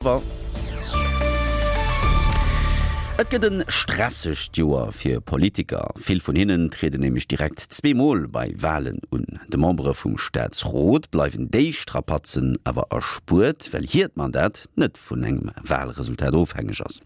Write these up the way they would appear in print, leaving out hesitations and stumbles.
Et gëtt e stressegt Joer fir Politiker. Vill vun hinnen trieden nämlech direkt zweemol bei Walen un. De Membere vum Staatsrot bleiwen déi Strapazen awer erspuert, well hiert Mandat net vun engem Walresultat ofhängeg ass.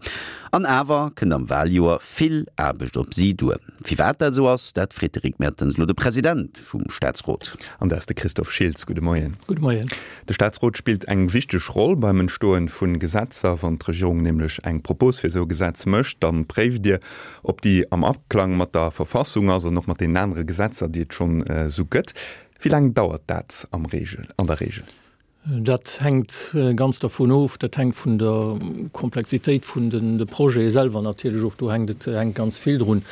An awer kënnt am Waljoer vill Aarbecht op si duer. Firwat dat esou ass, dat freet de Rick Mertens elo de President vum Staatsrot. An dat ass de Christophe Schiltz. Gudde Moien. Gudde Moien. De Staatsrot spillt eng wichteg Roll beim Entstoen vu Gesetzer. Wann d'Regierung nämlech eng Propos fir esou e Gesetz mécht, da préift Dir, ob déi am Aklang mat der Verfassung ass an och mat deenen anere Gesetzer, déi et schonn esou gëtt. Wéi laang dauert dat am Reegel, an der Reegel? Dat hänkt ganz dervun of, dat hänkt vun der Komplexitéit vun de Projete selwer natierlech of. Do hänkt et hänkt ganz vill drun.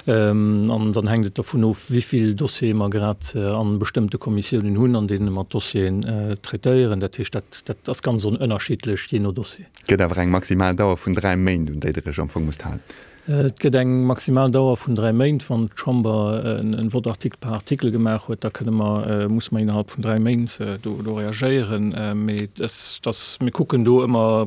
An dann hänkt et dervun of, wéi vill Dossiere mer grad a bestëmmte Kommissiounen hunn, an deene mer d'Dossieren traitéieren. Dat heescht, dat, dat ass ganz ënnerschiddlech, jee no Dossier. Et gëtt awer eng maximal Dauer vun 3 Méint, un déi Der Iech am Fong musst halen. Et gëtt eng maximal Dauer vun 3 Méint. Wann d'Chamber e Vote article par article gemaach huet, da kënne mer, musse mer innerhalb vun 3 Méint do, do reagéieren. Mee dass, dass mir kucken do ëmmer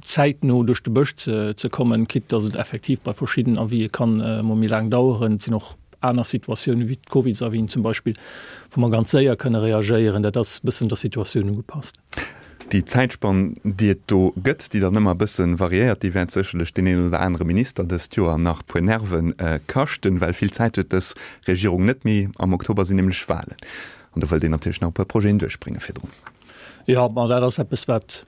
zäitno duerch de Bësch ze, ze kommen, quitte dass et effektiv bei verschidden Avisë kann emol méi laang daueren. Et sinn och aner Situatiounen, wéi d'Covidsavisen zum Beispill, wou mer ganz séier kënne reagéieren. Dat ass e bëssen der Situatioun ugepasst. Déi Zäitspann, déi et do gëtt, déi dann ëmmer e bësse variéiert, déi wäert sécherlech deen een oder anere Minister dëst Joer nach puer Nerve kaschten, well vill Zäit huet dës Regierung net méi. Am Oktober sinn nämlech Walen an do wëllt een natierlech nach e puer Projeten duerchbrénge virdrun. Jo, ma dat ass eppes, wat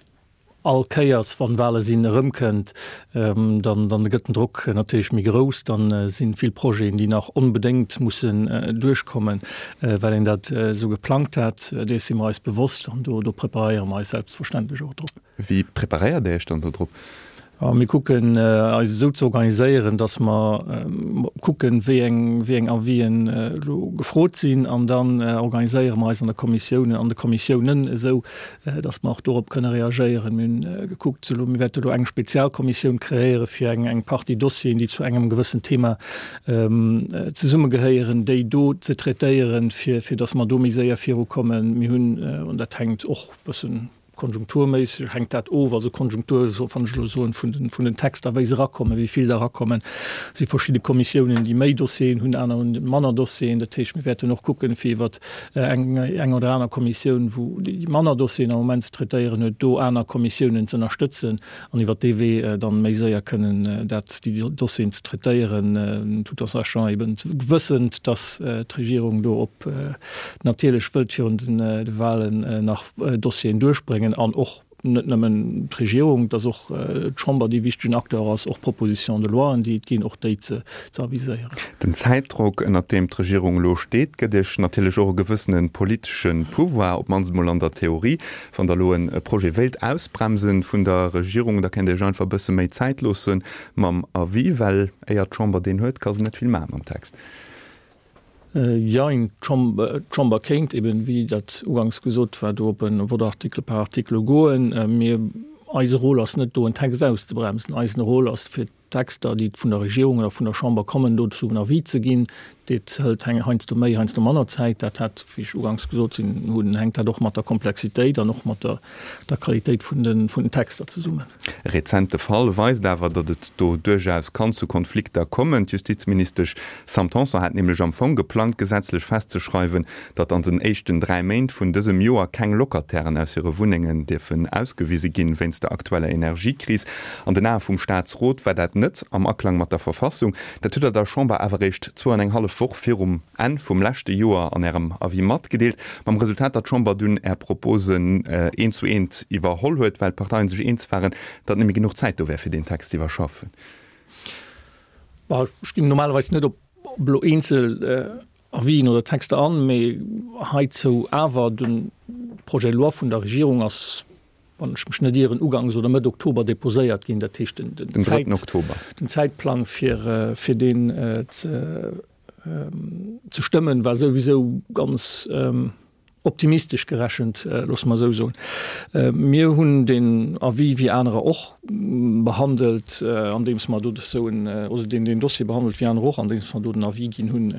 all Kéiers, wann Wale sinn, erëmkënnt. Dann dann gëtt den Drock natierlech méi grouss. Dann sinn vill Projeten, déi nach onbedéngt mussen duerchkommen, well een dat esou geplangt hat. Dees si mer eis bewosst an do do preparéiere mer eis selbstverständlech och drop. Wéi preparéiert Dir Iech dann do drop? Mir kucken eis esou ze organiséieren, datt mer kucken, wéi eng wéi eng Avisen elo gefrot sinn an dann organiséiere mer eis an der Kommissioun, an de Kommissiounen esou, datt mer och dorop kënne reagéieren. Mir hunn gekuckt elo, mir wäerte elo eng Spezialkommissioun kreéiere fir eng eng Partie Dossieren, déi zu engem gewëssen Thema zesummegehéieren, déi do ze traitéieren, fir fir datt mer do méi séier virukommen. Mir hunn, an dat hänkt och e bëssen konjunkturméisseg hänkt dat of, also Konjunktur, wann ech elo soen, vun den vun den Texter, wéi se erakommen, wéi vill der erakommen. Et si verschidde Kommissiounen, déi méi Dossieren hunn, aner hunn manner Dossieren. Dat heescht, mir wäerten och kucken, fir iwwert eng eng oder aner Kommissioun, wou déi manner Dossieren am Moment ze traitéieren huet, do aner Kommissiounen ze ënnerstëtzen an iwwert dee Wee dann méi séier kënnen dat déi Dossieren ze traitéieren, tout en sachant eben wëssend, dass d'Regierung do op natierlech wëllt virun de Wahlen nach Dossieren duerchbréngen an och net nëmmen d'Regierung, dass och d'Chamber dee wichtegen Acteur ass, och Propositions de loien, déi et ginn, och déi ze aviséieren. Den Zäitdrock, ënnert deem d'Regierung elo steet, gëtt Iech natierlech och e gewëssene politesche Pouvoir, op d'mannst emol an der Theorie. Wann Der elo e Projet wéilt ausbremsen vun der Regierung, da kéint Der Iech einfach e bësse méi Zäit loosse mam Avis, well éier d'Chamber deen huet, ka se net vill maache mam Text. Jein, d'Chamber kéint eben, wéi dat uganks gesot war, do op e Vote article par article goen. Mir, eise Rôle ass net do en Text auszebremsen. Eisen Rôle ass fir d'Texter, déi vun der Regierung oder vun der Chamber kommen, dozou en Avis ze ginn. Dat hëlt heiansdo méi, heiansdo manner Zäit. Dat hat, wéi ech uganks gesot hunn, hänkt dat och mat der Komplexitéit an och mat der der Qualitéit vun den vun den Texter zesummen. E rezente Fall weist awer, datt et do duerchaus kann zu Konflikter kommen. D'Justizministesch Sam Tanson hat nämlech am Fong geplangt, gesetzlech festzeschreiwen, datt an den éischten 3 Méint vun dësem Joer keng Locatairen aus hire Wunnengen dierfen ausgewise ginn, wéinst der aktueller Energiekris. An den Ae vum Staatsrot war dat net am Aklang mat der Verfassung. Dat hutt Der der Chamber awer eréischt zwou an eng hallef Woch virum Enn vum leschte Joer an Ärem Avis matgedeelt, mam Resultat, datt d'Chamber dunn Är Proposen eent zu eent iwwerholl huet, well d'Parteien sech eens waren, datt net méi genuch Zäit do wär, fir deen Text ze iwwerschaffen. Ech ginn normalerweis net op elo eenzel Avisen oder Texter an, mee heizou awer, De Projet de loi vun der Regierung ass wann ech mech net ieren, ugangs oder Mëtt Oktober deposéiert ginn. Dat heescht, den, den, den, Zäit, Oktober. den Zäitplang fir, fir deen ze, ze stëmmen, war souwisou ganz optimistesch gerechent, loosse mer esou soen. Mir hunn den Avis, wéi anerer och, behandelt, andeems mer do esou en, oder deen deen Dossier behandelt wéi aner och, andeems mer do den Avis ginn hunn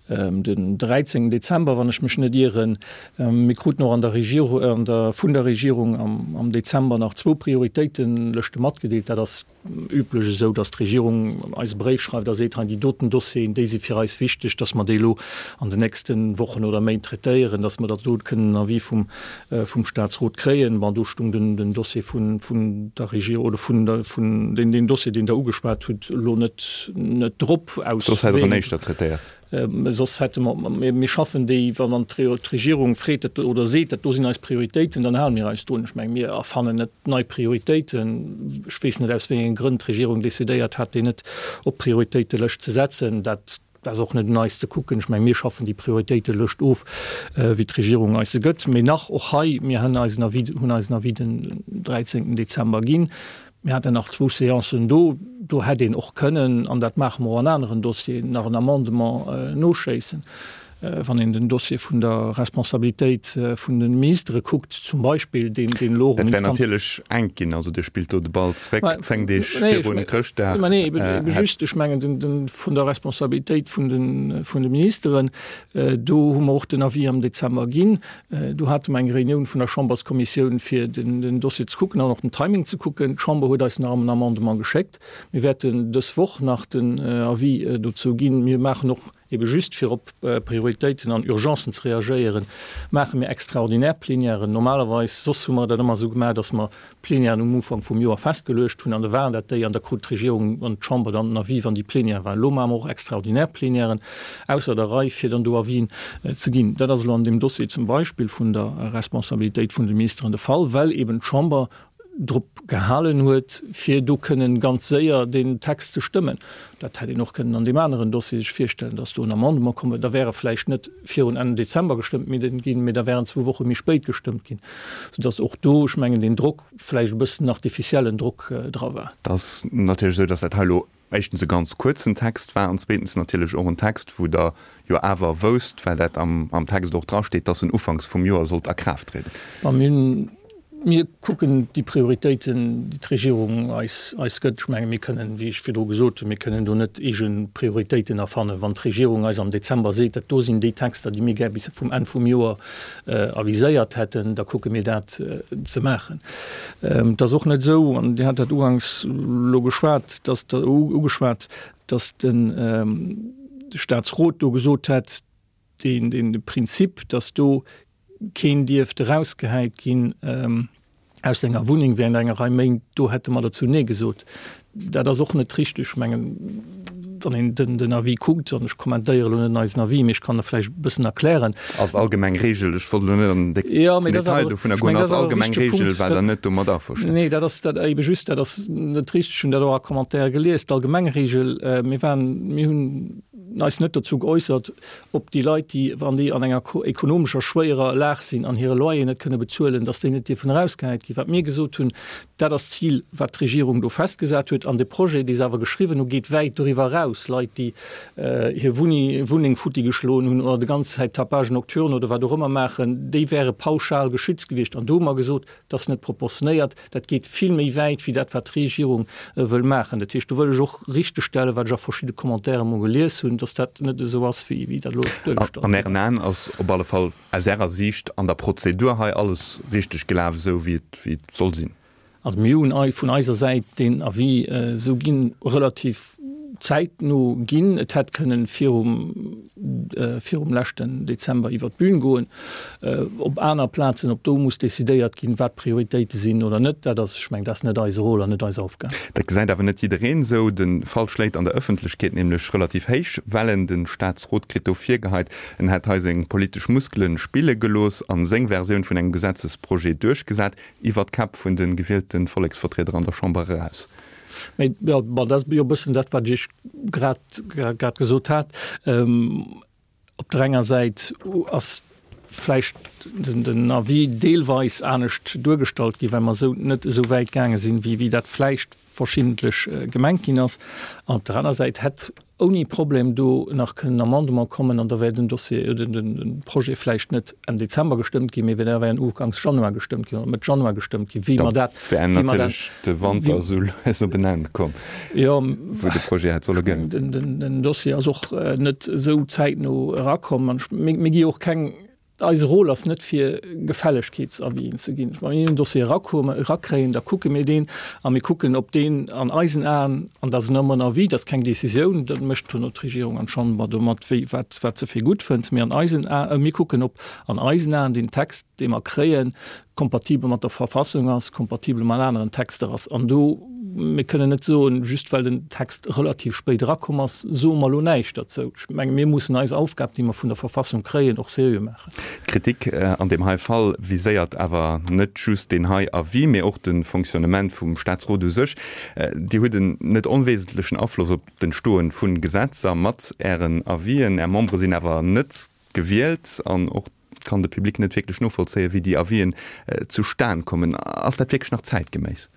den 13 Dezember, wann ech mech net ieren. Mir kruten och an der Regierung, an der, vun der Regierung am, am Dezember nach zwou Prioritéitenlëschte matgedeelt. Dat ass üblech esou, datt d'Regierung eis e Bréif schreift a seet, hei déi doten Dossieren, déi si fir eis wichteg, datt mer déi elo an den nächste Wochen oder Méint traitéieren, datt mer da do kënnen en Avis vum, vum Statsrot kréien. Bon, do stung den, den Dossier vun, vun der Regierung oder vun der, vun deen, deen Dossier, deen Der ugeschwat hutt, elo net, net drop aus Soss hätt Der en éischter traitéiert. Soss hätte mer, mir schaffen déi, wann dann d'Regierung freet dat oder seet, dat do sinn eis Prioritéiten, dann hale mir eis drun. Ech menge mir erfannen net nei Prioritéiten. Ech weess net, aus wéi enge Grënn d'Regierung decidéiert hat, déi net op d'Prioritéitelëscht ze setzen. Dat ass och net un eis ze kucken. Ech menge mir schaffen déi Prioritéitelëscht of, wéi d'Regierung eis se gëtt. Mee nach och hei, mir hunn eisen Avis, hunn eisen Avis den 13 Dezember ginn. Mir haten nach zwou Séancen do. Do hätt een och kënnen, an dat maache mer och an aneren Dossieren, nach en Amendement noschéissen. Wann een den Dossier vun der Responsabilitéit vun de Ministere kuckt zum Beispill, deen elo och. Dat wär natierlech enk ginn. Also Dir spillt do de Ball zréck, zéng Deeg viru Chrëschtdag. Mä nee, ebe just, ech mengen, de vun der Responsabilitéit vun de Ministeren, do hu mer och den Avis am Dezember ginn. Do hate mer eng Reunioun vun der Chamberskommissioun, fir den Dossier ze kucken an och den Timing ze kucken. D'Chamber huet eis nach en Amendement geschéckt. Mir wäerten dës Woch nach den Avis dozou ginn. Mir maachen och, ebe just fir op Prioritéiten an Urgencen ze reagéieren, maache mir extraordinär Plenièren. Normalerweis, soss hu mer dat ëmmer esou gemaach, datt mer Plenièren um Ufank vum Joer festgeluecht hunn an da waren dat déi an da krut d'Regierung an d'Chamber dann den Avis, wann déi Plenière waren. Elo maache mer och extraordinär Plenièren ausser der Rei, fir dann do Avisen ze ginn. Dat ass elo an deem Dossier zum Beispill vun der Responsabilitéit vun de Ministeren de Fall, well eben d'Chamber drop gehalen huet, fir do kënnen ganz séier deen Text ze stëmmen. Dat hätt een och kënnen an deem aneren Dossier sech virstellen, dass do en Amendement komm wär. Da wär e vläicht net virun Enn Dezember gestëmmt ginn, mee da wär en zwou Woche méi spéit gestëmmt ginn, soudass och do, ech mengen, deen Drock, vläicht e bëssen artificiellen Drock dra war. Et ass natierlech esou, dass dat hei elo éischtens e ganz kuerzen Text war an zweetens natierlech och en Text, wou Der jo awer wousst, well dat am Text och drasteet, dass en ufanks vum Joer sollt a Kraaft trieden. Mä mir hunn Mir kucken déi Prioritéiten, déi d'Regierung eis eis gëtt. Ech menge mir kënnen, wéi ech virdru gesot hunn, mir kënnen do net eege Prioritéiten erfannen. Wann d'Regierung eis am Dezember seet, dat do sinn déi Texter, déi mir gär bis vum Enn vum Joer aviséiert hätten, da kucke mir dat ze maachen. Et ass och net esou, an Dir hat dat uganks elo geschwat, dass ugeschwat, dass de Statsrot do gesot hätt, deen, deen de Prinzip, dass do keen dierft erausgehäit ginn aus senger Wunneng während enger Rei Méint, do hätte mer dozou Nee gesot. Dat ass och net richteg. Ech mengen, wann een den, den Avis kuckt, an ech kommentéiere elo net eisen Avis, mee ech kann e vläicht e bëssen erklären. Als allgemeng Regel, ech wollt elo net an den Jo, mee dat ass Detail awer, dovunner ech goen, mengen, dat als ass awer e allgemeng wichtege Regel Punkt. war Dat, Der net domat averstanen. nee, dat ass dat ebe just, dat ass net richteg. Ech hunn dat och a Commentaire gelies. D'allgemeng Regel, mir waren, mir hunn eis net dozou geäussert, ob déi Leit, déi, wann déi an enger ekonomescher schwéierer Lag sinn an hire Loyer net kënne bezuelen, datt déi net dierfen erausgehäit ginn. Wat mir gesot hunn, dat ass d'Zil, wat d'Regierung do festgesat huet. An de Projet, dee se awer geschriwwen hu, geet wäit doriwwer eraus. Leit, déi hir Wunneng futti geschloen hunn oder de ganz Zäit Tapage nocturne oder wat och ëmmer maachen, déi wäre pauschal geschützt gewiescht. An do hu mer gesot, Dat ass net proportionéiert, dat geet vill méi wäit wéi dat, wat d'Regierung wëll maachen. Dat heescht, do wëll ech och richtegstellen, wat ech a verschidde Commentaire emol gelies hunn, dass dat net esou ass, wéi dat elo duergestallt An ginn Ären ass. Aen ass op alle Fall aus Ärer Siicht an der Prozedur hei alles richteg gelaf, esou wéi et soll sinn? Also mir hunn vun eiser Säit deen Avis esou ginn, relativ zäitno ginn. Et hätt kënnen virum, virum leschten Dezember iwwert d'Bühn goen. Op aner Plazen, ob do muss decidéiert ginn, wat d'Prioritéite sinn oder net, dat ass, ech mengen, dat ass net eise Rôle an net eis Aufgab. Dat gesäit awer net jiddereen esou. De Fall schléit an der Ëffentlechkeet nämlech relativ héich Wellen. De Staatsrot kritt do virgeheit, en hätt hei seng politesch Muskele spille gelooss a seng Versioun vun engem Gesetzesprojet duerchgesat, iwwert d'Käpp vun de gewielte Volleksvertrieder an der Chamber eraus. Mee jo, bon, dat ass jo e bëssen dat, wat ech Iech grad, grad gesot hat. Op der enger Säit ass. vläicht den Avis deelweis anescht duergestallt ginn, well mer esou net esou wäit gaange sinn, wéi dat vläicht verschiddentlech gemengt ginn ass. An op der aner Säit hätt ouni Problem do nach kënnen Amendement kommen an da wär den Dossier oder den Projet vläicht net Enn Dezember gestëmmt ginn, mee da wär en uganks Januar gestëmmt ginn oder Mëtt Januar gestëmmt ginn, wéi mer dat. Da wär natierlech de Wanter esou lues op en Enn komm, wou de Projet hätt solle gëllen. Den Dossier ass och net esou zäitno erakomm an mir gi och keng Eise Rôle ass net fir Gefällegkeetsavisen ze ginn. Wa mir en Dossier erakréien, da kucke mir deen a mir kucken, ob deen an eisen Aen, an dat ass nëmmen en Avis, dat ass keng Décisioun, dat mécht duerno d'Regierung an d'Chamber domat, wéi wat wat se fir gutt fënnt, mee an eisen Aen, mir kucken, ob an eisen Aen deen Text, dee mer kréien, kompatibel mat der Verfassung ass, kompatibel mat aneren Texter ass. An do, mir kënnen net soen, just well den Text relativ spéit erakomm ass, soe mer elo näischt derzou. Ech menge mir mussen eis Aufgab, déi mer vun der Verfassung kréien, och seriö maachen. D'Kritik an deem hei Fall viséiert awer net just deen hei Avis, mee och de Fonctionnement vum Staatsrot u sech. Dir hutt en net onwesentlechen Afloss op d'Entstoe vu Gesetzer mat Ären Avisen. Är Membere sinn awer net gewielt an och kann de Public net wierklech novollzéien, wéi déi Avisen zustan kommen. Ass dat wierklech nach zäitgeméiss?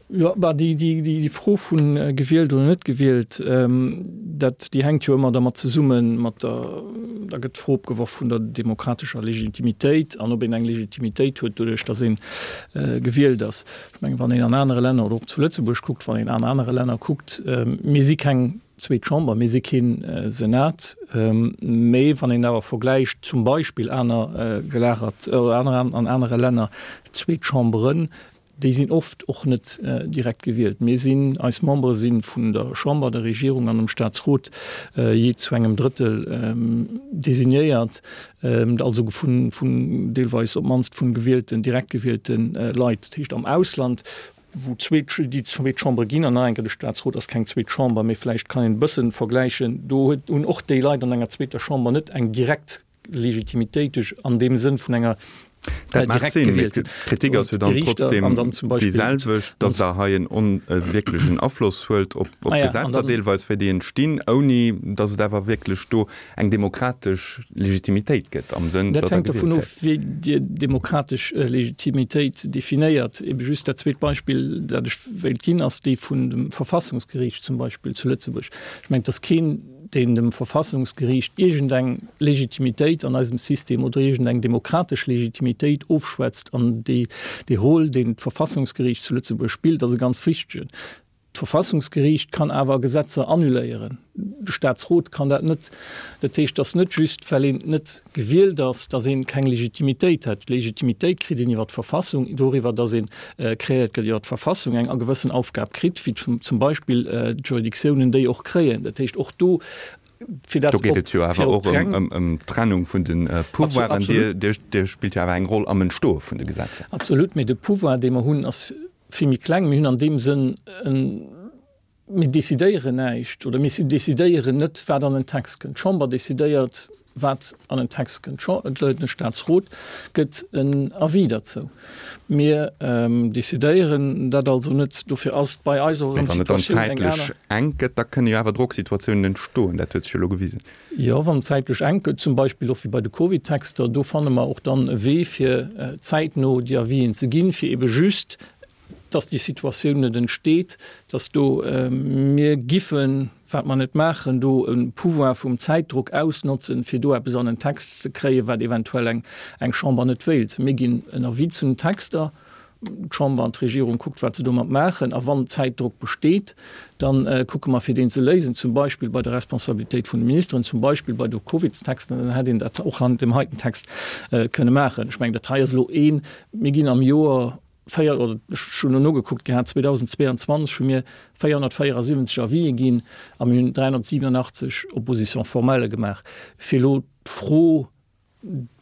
Jo, bah, déi, déi, déi Fro vu gewielt oder net gewielt, dat, déi hänkt jo ëmmer dermat zesummen, mat der, da gëtt d'Fro opgeworf vun der demokratescher Legitimitéit an ob een eng Legitimitéit huet doduerch, datt ee gewielt ass. Ech mengen, wann een an anere Länner oder och zu Lëtzebuerg kuckt, wann een an anere Länner kuckt, mir si keng zweet Chamber, mir si kee Senat, mee wann een awer vergläicht zum Beispill aner gelagert oder aner an anere Länner zweet Chamberen, déi sinn oft och net direkt gewielt. Mir sinn, eis Membere si vun der Chamber, der Regierung an dem Staatsrot jee zu engem Drëttel designéiert, also vun, vun deelweis op d'mannst vun gewielten, direkt gewielte Leit. Dat heescht am Ausland wou zweet, déi zweet Chambre ginn, an nach eng Kéier, de Statsrot ass keng zweet Chamber, mee vläicht kann een e bësse vergläichen, do huet, hunn och déi Leit an enger zweeter Chamber net eng direkt Legitimitéit duerch, an deem Sënn vun enger Dat mag direkt sinn, mee gewielten. d'Kritik ass jo dann D'Gerichter trotzdem an dann zum déi Beispill selwecht, datt Der hei en on, e wierklechen Afloss huelt op, op Ah ja, an d'Gesetzer dann. deelweis, wéi déi entstinn, ouni datt et awer wierklech do eng demokratesch Legitimitéit gëtt am Sënn, Dat datt Der hänkt dovun gewielt of, wéi Dir demokratesch Legitimitéit definéiert. Ebe just dat zweet Beispill, dat ech wéilt ginn, ass dee vun dem Verfassungsgeriicht zum Beispill zu Lëtzebuerg. Ech mengen, et ass keen, deen dem Verfassungsgeriicht iergendeng Legitimitéit an eisem System oder iergendeng demokratesch Legitimitéit ofschwätzt. An dee Rôle, deen d'Verfassungsgeriicht zu Lëtzebuerg spillt, ass e ganz wichtegen. D'Verfassungsgeriicht kann awer Gesetzer annuléieren, de Staatsrot kann dat net. Dat heescht, et ass net just, well een net gewielt ass, datt ee keng Legitimitéit hätt. D'Legitimitéit kritt een iwwer d'Verfassung, doriwwer, datt ee kreéiert gëtt iwwer d'Verfassung, eng gewëssen Aufgab kritt, wéi zum Beispill d'Juridictiounen déi och kréien. Dat heescht, och do, fir dat Do geet et jo awer och ëm d'Trennung vun de Pouvoiren. Dir spillt jo awer eng Roll am Entstoe vun de Gesetzer. Absolut, mee de Pouvoir, dee mer hunn, ass vill méi kleng. Mir hunn an deem Sënn en, mir decidéieren näischt oder mir decidéieren net, wat an en Text kënnt. D'Chamber decidéiert, wat an en Text kënnt. De Staatsrot gëtt en Avis derzou. Mir decidéieren dat also net. Dofir ass et bei eis och erëm d'Situatioun eng aner. Mee wann et dann zäitlech enk gëtt, da kënne jo awer Drocksituatiounen entstoen. Dat huet sech jo elo gewisen. Jo, wann et zäitlech enk gëtt, zum Beispill och wéi bei de Covid-Texter, do fanne mer och dann e Wee, fir zäitno déi Avisen ze ginn, fir ebe just, dass déi Situatioun net entsteet, dass do mir giffen, wat mer net maachen, do e Pouvoir vum Zäitdruck ausnotzen, fir do eppes an en Text ze kréien, wat eventuell eng Chamber net wéilt. Mir ginn en Avis zu den Texter. D'Chamber an d'Regierung kuckt, wat se domat maachen. A wann Zäitdrock besteet, da kucke mer, fir deen ze léisen, zum Beispill bei der Responsabilitéit vun de Ministeren, zum Beispill bei de Covidstexten. Dann hätt een dat och an deem heiten Text kënne maachen. Ech mengen, dat hei ass elo een, mir ginn am Joer véier, oder ech hunn elo nogekuckt gehat, 2022 hu mir 474 Avisë ginn a mir hunn 387 Opposition-formellë gemaach. Fir elo d'Fro,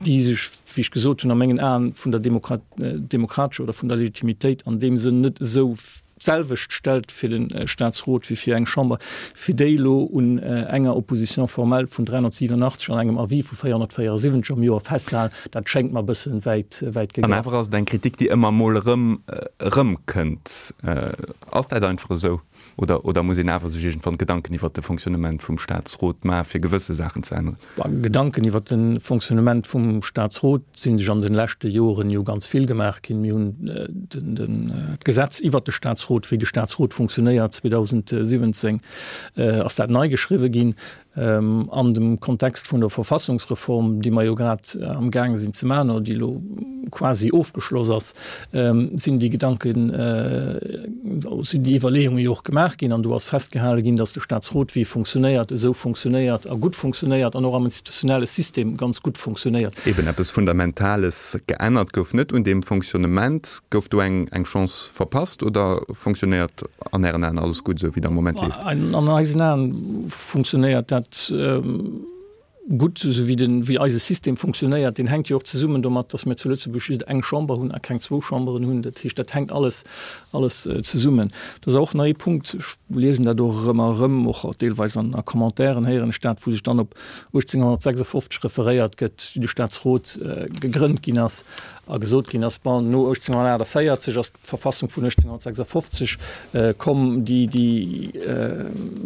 déi sech, wéi ech gesot hunn, a mengen Aen vun der demokratescher oder vun der Legitimitéit an deem Sënn net esou. d'selwecht stellt fir de Statsrot wéi fir eng Chamber, fir déi elo un enger Opposition formelle vun 387 an engem Avis vu 474 am Joer festzehalen, dat schéngt mer e bësse wäit, wäit An gegraff. awer ass et eng Kritik, déi ëmmer emol erëm, erëmkënnt. Ass dat einfach esou? Oder, oder muss een awer sech iergendwann Gedanken iwwert de Fonctionnement vum Statsrot maachen, fir gewësse Saachen ze änneren? Gedanken iwwert de Fonctionnement vum Statsrot si sech an de leschte Joren jo ganz vill gemaach ginn. Mir hunn d'Gesetz iwwert de Statsrot, wéi de Statsrot funktionéiert, 2017 ass dat nei geschriwwe ginn. An dem Kontext vun der Verfassungsreform, déi mer jo grad amgaange sinn ze maachen oder déi elo quasi ofgeschloss ass, sinn déi Gedanken, sinn déi Iwwerleeunge jo och gemaach ginn. An do ass festgehale ginn, datt de Statsrot, wéi e funktionéiert, esou funktionéiert a gutt funktionéiert an och am institutionelle System ganz gutt funktionéiert. Eben eppes Fundamentales geännert gouf net un deem Fonctionnement. Gouf do eng Chance verpasst oder fonctionnéiert an Ären Aen alles gutt, esou wéi et am Moment leeft? An eisen Aen funktionéiert dat gutt, esou wéi den, wéi eise System funktionéiert. Deen hänkt jo och zesummen domat, datt mir zu Lëtzebuerg just eng Chamber hunn a keng zwou Chamberen hunn. Dat heescht, dat hänkt alles, alles zesummen. Dat ass och nach ee Punkt, ech liesen dat och erëm a erëm, och deelweis an a Commentairen héieren ech dat, wou sech dann op 1856 referéiert gëtt, wéi de Staatsrot gegrënnt ginn ass a gesot ginn ass, bon, no 1848 ass d'Verfassung vun 1856 komm, déi, déi,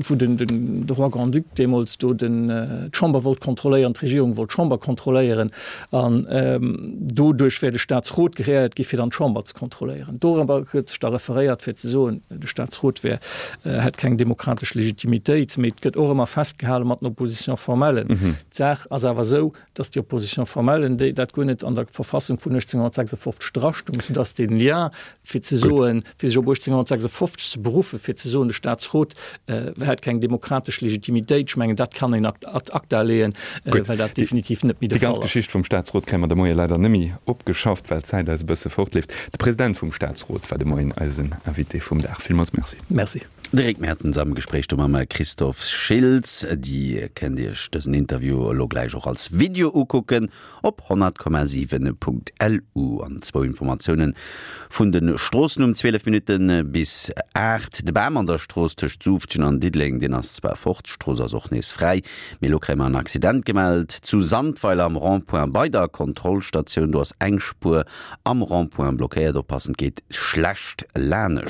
wou den, den, de Roi Grand-Duc deemools do den, d'Chamber wollt kontrolléieren, d'Regierung wollt d'Chamber kontrolléieren an doduerch wär de Staatsrot kreéiert gi fir dann d'Chamber ze kontrolléieren. Dorobber gëtt sech da referéiert fir ze soen, de Staatsrot wär, hätt keng demokratesch Legitimitéit. Mee et gëtt och ëmmer festgehale mat den Oppositions formellen. D'Saach ass awer esou, dass déi Opposition formelle, déi dat guer net an der Verfassung vun 1856 drastung, soudass dee Lien, fir ze soen, fir sech op 1856 ze beruffen, fir ze soen, de Statsrot hätt keng demokratesch Legitimitéit, ech mengen, dat kann een ad acta leeën, well dat definitiv net méi de Fall ass. Déi ganz Geschicht vum Statsrot kréie mer de Moie leider net méi opgeschafft, well d'Zäit eis e bësse fortleeft. De President vum Statsrot war de Moien eisen Invité vum Dag. Villmools Merci. Merci. De Rick Mertens am Gespréich do mam Christophe Schiltz. Dir kënnt Iech dësen Interview elo gläich och als Video ukucken op 100,7.lu. An zwou Informatioune vun de Stroossen um 12 Minutte bis 8. De Bam an der Strooss tëscht Suuftgen an Diddeleng, deen ass zwar fort, d'Strooss ass och nees fräi, mee elo kréie mer en Accident gemellt zu Sandweiler am Rond-point bei der Kontrollstatioun. Do ass eng Spuer am Rond-point blockéiert. Oppassen, et geet schlecht lanescht.